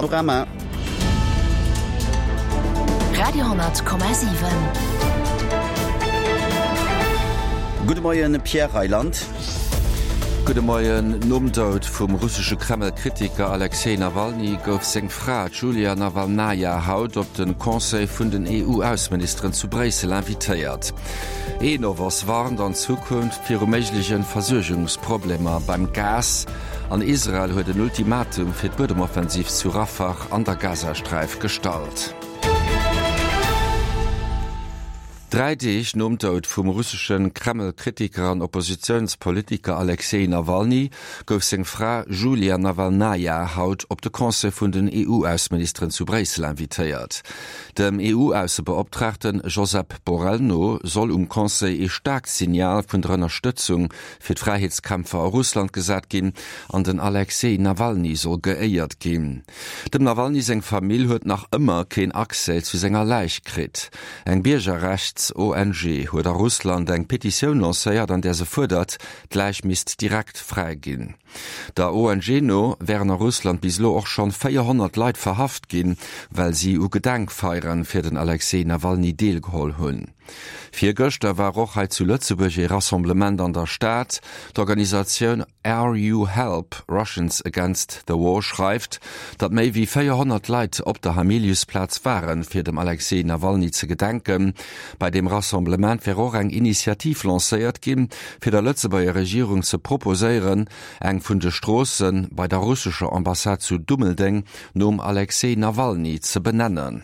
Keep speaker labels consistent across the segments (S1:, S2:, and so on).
S1: Panorama.
S2: Radio,7.
S1: Gudde Moien, Pierre Reyland.
S3: Gudde Moien. Nom Doud vum russesche Kreml-Kritiker Alexej Nawalny gouf seng Fra, d'Julia Nawalnaja, haut op de Conseil vun den EU-Ausseministeren zu Bréissel invitéiert. Enovos warnt an Zukunft viru méigleche Versuergungsproblemer beim Gas. An Israel huet en Ultimatum fir d'Buedemoffensiv zu Rafah an der Gazasträif gestallt. Dräi Deeg nom Doud vum russesche Kreml-Kritiker an Oppositiounspolitiker Alexej Nawalny gouf seng Fra Julia Nawalnaja haut op de Conseil vun den EU-Ausseministeren zu Bréissel invitéiert. Dem EU-Aussebeoptraagte Josep Borrell no soll um Conseil ee staarkt Signal vun der Ënnerstëtzung fir d'Fräiheetskämpfer a Russland gesat ginn an den Alexej Nawalny soll geéiert ginn. Dem Nawalny seng Famill huet nach ëmmer keen Accès zu senger Läich kritt. Eng Biergerrechts-ONG huet a Russland eng Petitioun lancéiert, an där se fuerdert, d'Läich misst direkt fräi ginn. Der ONG no wären a Russland bis elo och schonn 400 Leit verhaft ginn, well si u Gedenkfeiere fir den Alexej Nawalny deelgeholl hunn. Virgëschter war och hei zu Lëtzebuerg ee Rassemblement an der Stad. D'Organisatioun RU Help, Russians Against the War schreift, datt méi wéi 400 Leit op der Hamiliusplaz waren, fir dem Alexej Nawalny ze gedenken. Bei deem Rassemblement wär och eng Initiativ lancéiert ginn, fir der Lëtzebuerger Regierung ze proposéieren, eng vun de Stroosse bei der russescher Ambassade zu Dummeldeng nom Alexej Nawalny ze benennen.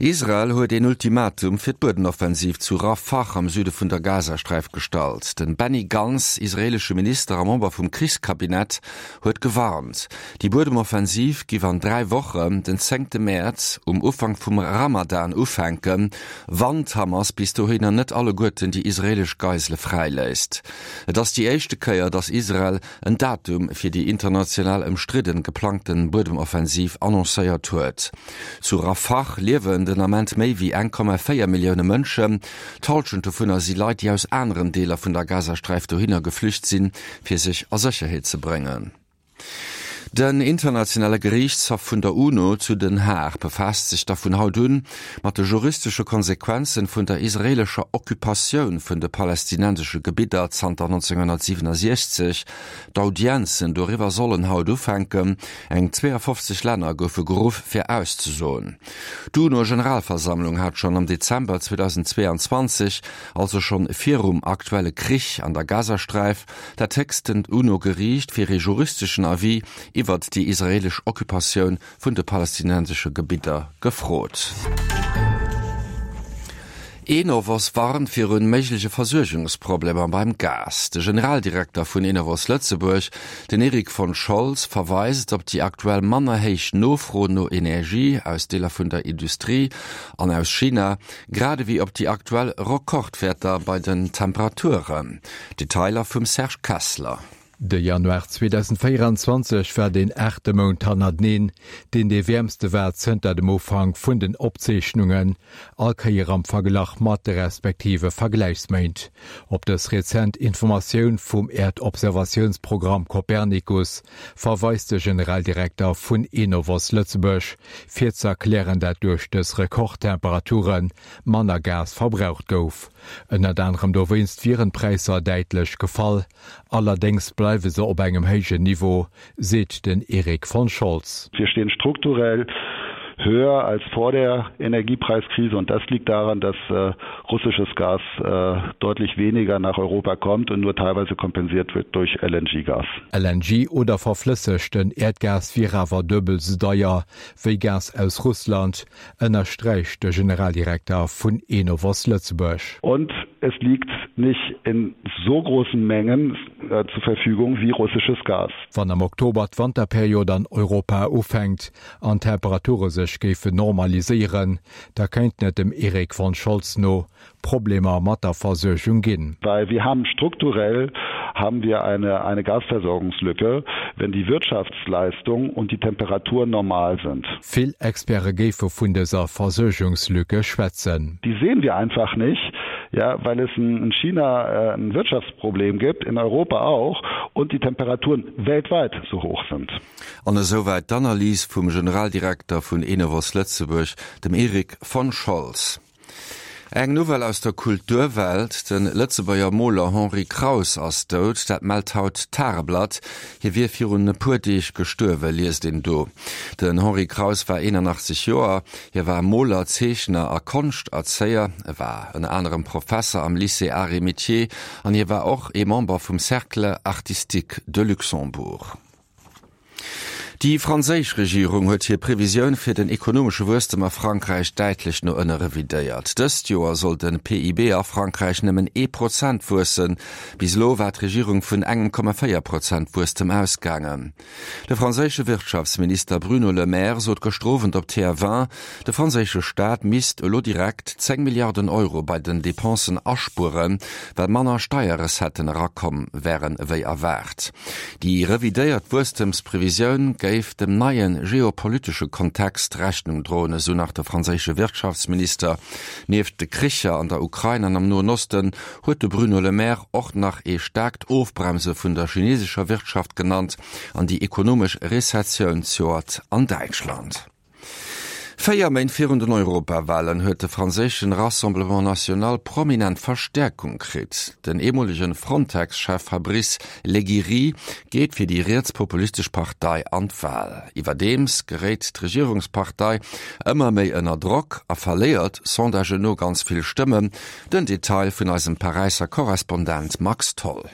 S3: Israel huet een Ultimatum fir d'Buedenoffensiv zu Rafah am Süde vun der Gazasträif gestallt. Den Benny Gantz, israeelesche Minister a Member vum Krichskabinett, huet gewarnt, déi Buedemoffensiv giff an 3 Wochen, den zéngte Mäerz, um Ufank vum Ramadan ufänken, wann d'Hamas bis dohinner net alleguerten déi israeelesch Geisele fräiléisst. Et ass déi éischte Kéier, datt Israel en Datum fir déi international ëmstridden geplangten Buedemoffensiv annoncéiert huet. Zu Rafah liewen den Ament méi wéi 1,4 Millioune Mënschen. D'Hallschent dovunner si Leit, déi aus aneren Deeler vun der Gazasträif dohinner geflücht sinn, fir sech a Sécherheet ze bréngen. Den internationale Geriichtshaff vun der UNO zu Den Haag befaasst sech da vun haut un mat de juristesche Konsequenzen vun der israeelescher Occupatioun vun de palästinensesche Gebidder zanter 1967. D'Audienzen doriwwer sollen haut ufänken. Eng 52 Länner goufe geruff fir auszesoen. D'UNO-Generalversammlung hat schonn am Dezember 2022, also schonn virum aktuelle Krich an der Gazasträif, dat héchstent UNO-Geriicht fir ee juristeschen Avis iwwert déi israeelesch Occupatioun vun de palästinensesche Gebidder gefrot. Enovos warnt virun méigleche Versuergungsproblemer beim Gas. De Generaldirekter vun Enovos Lëtzebuerg, den Eric von Scholz, verweist op déi aktuell manner héich Nofro no Energie aus Deeler vun der Industrie an aus China, grad ewéi op déi aktuell Rekordwäerter bei den Temperaturen. Detailer vum Serge Kessler.
S4: De Januar 2024 war deen aachte Mount hannerteneen, deen dee wäermste war zënter dem Ufank vun den Opzeechnungen, all Kéier am Verglach mat de respektive Vergläichsméint. Op dës rezent Informatioun vum Äerdobservatiounsprogramm Copernicus verweist de Generaldirekter vun Enovos Lëtzebuerg, fir ze erklären, dat duerch dës Rekordtemperature manner Gas verbraucht gouf. Ënnert anerem dowéinst wieren d'Präisser däitlech gefall, allerdéngs bleiwe se op engem héijen Niveau, seet den Eric von Scholz.
S5: Wir stehen strukturell höher als vor der Energiepreiskrise und das liegt daran, dass russisches Gas deutlich weniger nach Europa kommt und nur teilweise kompensiert wird durch LNG-Gas.
S4: LNG oder verflëssegten Äerdgas wier awer duebel sou deier wéi Gas aus Russland, ënnersträicht de Generaldirekter vun Enovos Lëtzebuerg.
S5: Und es liegt nicht in so großen Mengen zur Verfügung wie russisches Gas.
S4: Wann am Oktober d'Wanterperiod an Europa ufänkt an d'Temperature sech géifen normaliséieren, da kéinten et dem Eric von Scholz no Problemer mat der Versuergung ginn.
S5: Well wir haben strukturell haben wir eine eine Gasversorgungslücke, wenn die Wirtschaftsleistung und die Temperaturen normal sind.
S4: Vill Experte géife vun dëser Versuergungslücke schwätzen.
S5: Die sehen wir einfach nicht. Ja, weil es in China äh, ein Wirtschaftsproblem gibt, in Europa auch und die Temperaturen weltweit so hoch sind.
S3: An esouwäit d'Analys vum Generaldirekter vun Enovos Lëtzebuerg, dem Erik von Scholz. Eng Nouvelle aus der Kulturwelt, De Lëtzebuerger Moler Henri Kraus ass dout. Dat mellt haut d'Tageblatt. Hie wier virun e puer Deeg gestuerwen, liest een do. Den Henri Kraus war 81 Joer. Hie war Moler, Zeechner a Konschterzéier. E war ënner anerem Professer am Lycée Arts et Métiers an hie war och ee Member vum Cercle artistique de Luxembourg. Déi franséisch Regierung huet hir Previsioun fir den ekonomesche Wuesstem a Frankräich däitlech no ënne revidéiert. Dëst Joer soll de PIB a Frankräich nëmmen ee Prozent wuessen. Bis elo war d'Regierung vun engem Komma 4 Prozent Wuesstem ausgaangen. De franséische Wirtschaftsminister Bruno Le Maire sot gëschter Owend op TF1, de franséische Staat misst elo direkt 10 Milliarden Euro bei den Depensen aspueren, well manner Steierrecetten erakomm wären ewéi erwaart. Déi revidéiert Wuesstemsprevisioun géif dem neie geopolitesche Kontext Rechnung droen, esou nach de franséische Wirtschaftsminister. Nieft de Kricher an der Ukrain an am Noen Osten huet de Bruno Le Maire och nach ee staarkt Ofbremse vun der chinesescher Wirtschaft genannt an déi ekonomesch Rezessioun zejoert an Däitschland. Véier Méint virun den Europawahlen huet de franséischen Rassemblement National prominent Verstäerkung kritt. Den eemolegen Frontex-Chef Fabrice Leggeri geet fir déi rietspopulistesch Partei an d'Wahl. Iwwerdeems geréit d'Regierungspartei ëmmer méi ënner Drock a verléiert Sondagen no ganz vill Stëmmen. Den Detail vun eisem Paräisser Korrespondent Max Tholl.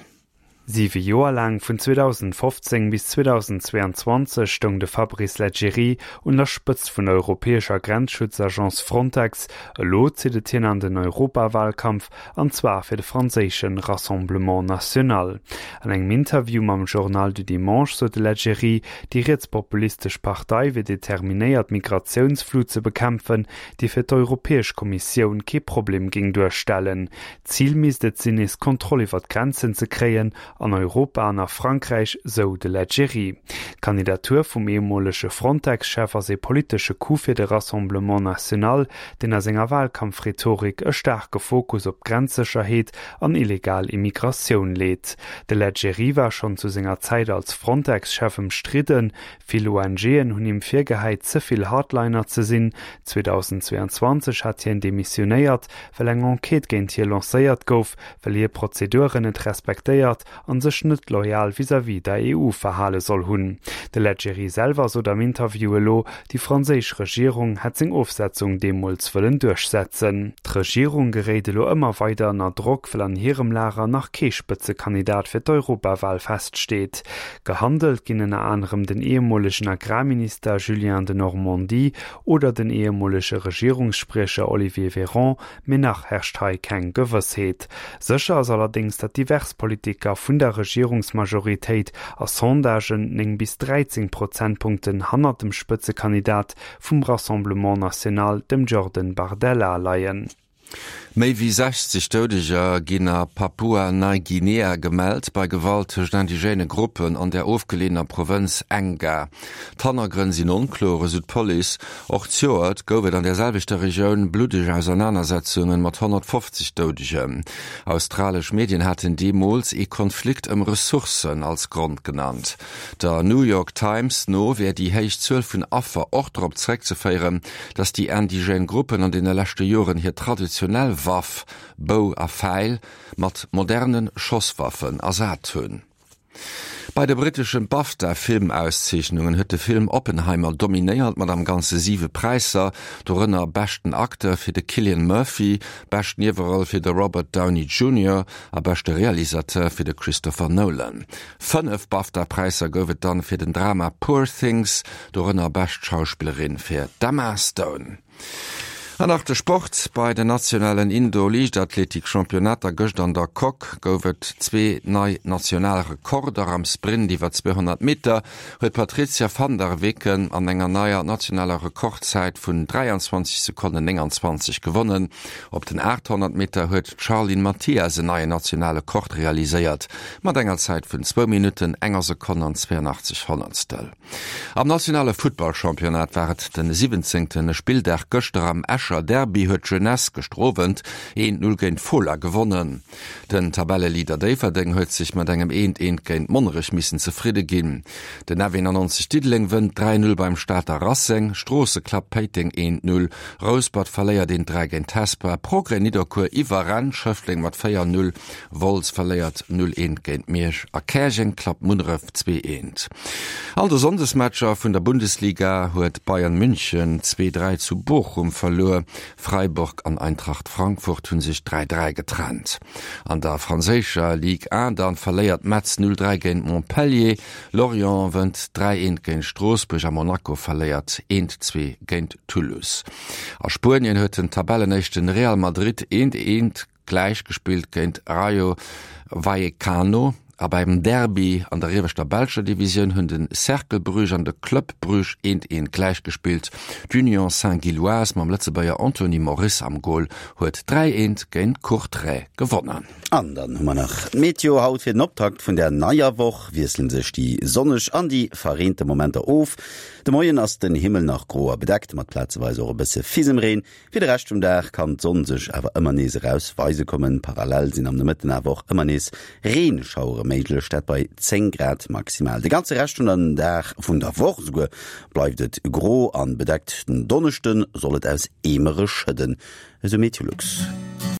S6: Siwe Joer laang, vun 2015 bis 2022, stoung de Fabrice Leggeri un der Spëtzt vun der europäescher Grenzschutzagence Frontex. Elo zitt et hien an den Europawahlkampf, an zwar fir de franséische Rassemblement National. An engem Interview mam Journal du Dimanche sot de Leggeri, déi rietspopulistesch Partei wier determinéiert d'Migratiounsflut ze bekämpfen, déi fir d'Europäesch Kommissioun kee Problem géing duerstellen. Zil misst et sinn, nees Kontroll iwwer d'Grenzen ze kréien, an Europa an a Frankräich, sou de Leggeri. D'Kandidatur vum ehemolege Frontex-Chef ass ee politesche Coup fir de Rassemblement National, deen a senger Wahlkampfrhetorik e staarke Fokus op d'Grenzsécherheet an illegal Immigratioun leet. De Leggeri war schonn zu senger Zäit als Frontex-Chef ëmstridden. Vill ONGen hunn him virgehäit, ze vill Hardliner ze sinn. 2022 hat hien demissionéiert, well eng Enquête géint hie lancéiert gouf, well hie Prozeduren net respektéiert an sech net loyal vis-à-vis der EU verhale soll hunn. De Leggeri selwer sot am Interview elo, déi franséisch Regierung hätt seng Ofsetzung deemools wëllen duerchsetzen. D'Regierung geréit elo ëmmer weider ënner Drock, well an hirem Lager nach kee Spëtzekandidat fir d'Europawal feststeet. Gehandelt ginn ënner anerem den ehemolegen Agrarminister Julien Denormandie oder den ehemolege Regierungsspriecher Olivier Véran, mee nach herrscht hei keng Gewëssheet. Sécher ass allerdéngs, datt divers Politiker vun der Regierungsmajoritéit a Sondagen 9 bis 13 Prozentpunkten hannert dem Spëtzekandidat vum Rassemblement National, dem Jordan Bardella, leien.
S3: Méi wéi 60 Doudeger ginn a Papua-Neiguinea gemellt, bei Gewalt tëscht indigène Gruppen an der ofgeleeëner Provënz Enga. D'Hannergrënn sinn onkloer, esou d'Police. Och zejoert gouf et an der selwechter Regioun bluddeg Ausernanersetzunge mat 150 Doudegen. Australesch Medien haten deemools ee Konflikt ëm Ressourcen als Grond genannt. Der New York Times no wär déi héich Zuel vun Affer och drop zeréckzeféieren, datt déi indigène Gruppen an deene leschte Joren hir traditionell Waff, Bou a Fäil, mat moderne Schosswaffen ersat hunn. Bei de brittesche BAFTA-Filmauszeechnungen huet de Film Oppenheimer dominéiert mat am Ganze siwe Präisser, dorënner beschten Acteur fir de Cillian Murphy, bescht Nieweroll fir de Robert Downey Junior a beschte Realisateur fir de Christopher Nolan. Fënnef BAFTA-Präisser gouf et dann fir den Drama Poor Things, dorënner Bescht Schauspillerin fir d'Emma Stone. An nach de Sport, Bei den nationalen Indoor-Liichtathletik-Championnater gëscht an der Coque gouf et zwee nei national Rekorder. Am Sprint iwwer 200 Meter huet d'Patrizia van der Weken an enger neier nationaler Rekordzäit vun 23 Sekonnen 29 gewonnen. Op den 800 Meter huet d'Charline Mathias en neien nationale Kord realiséiert mat enger Zäit vun zwou Minutten, enger Sekonn an 82 Honnertstel. Am nationale Futtballchampionnat war et de siwwenzéngte Spilldag gëschter am Escher. Escher Derby huet d'Jeunesse gëschter Owend 1, 0 géint Fola gewonnen. Den Tabelleleader Déifferdeng huet sech mat engem 1, 1 géint Monnerech missen zefridde ginn. Den F91 Diddeleng wënnt 3, 0 beim Stater Racing, Stroosse klappt Péiteng 1, 0, Rouspert verléiert 1, 3 géint Hesper, Progrès Nidderkuer iwwerrennt Schëffleng mat 4, 0, Wolz verléiert 0, 1 géint Miersch a Käerjeng klappt Munneref 2, 1. An de Sonndesmatcher vun der Bundesliga huet Bayern München 2, 3 zu Bochum verluer. Freiburg an Eintracht Frankfurt hu sech 3, 3 getrennt. An der franséischer Ligue 1 dann verléiert Metz 0, 3 géint Montpellier, Lorient wënnt 3, 1 géint Stroossbuerg a Monaco verléiert 1, 2 géint Toulouse. A Spuenien huet den Tabellenéischten Real Madrid 1, 1 gläich gespillt géint Rayo Vallecano a beim Derby an der ieweschter belscher Divisioun hunn de Cercle Bruges an de Club Bruges eent eent gläich gespillt. D'Union Saint-Gilloise mam Lëtzebuerger Anthony Moris am Gol huet 3 eent géint Courtrai gewonnen.
S1: An dann hu mer nach d'Meteo haut. Fir den Optakt vun der neier Woch wiessele sech déi sonneg an déi verreente Momenter of. De Moien ass den Himmel nach gro a bedeckt, mat plazeweis och e bësse Fisemreen. Fir de Rescht vum Dag kann d'Sonn sech awer ëmmer nees eraus weise kommen. Parallel sinn am Nomëtten awer och ëmmer nees Reenschauere méiglech, dat bei 10 Grad maximal. De ganze Rescht vun den Dag, vun der Woch esouguer, bleift et gro an bedeckt. Den Donneschde soll et aus Eemere schëdden, esou Meteolux.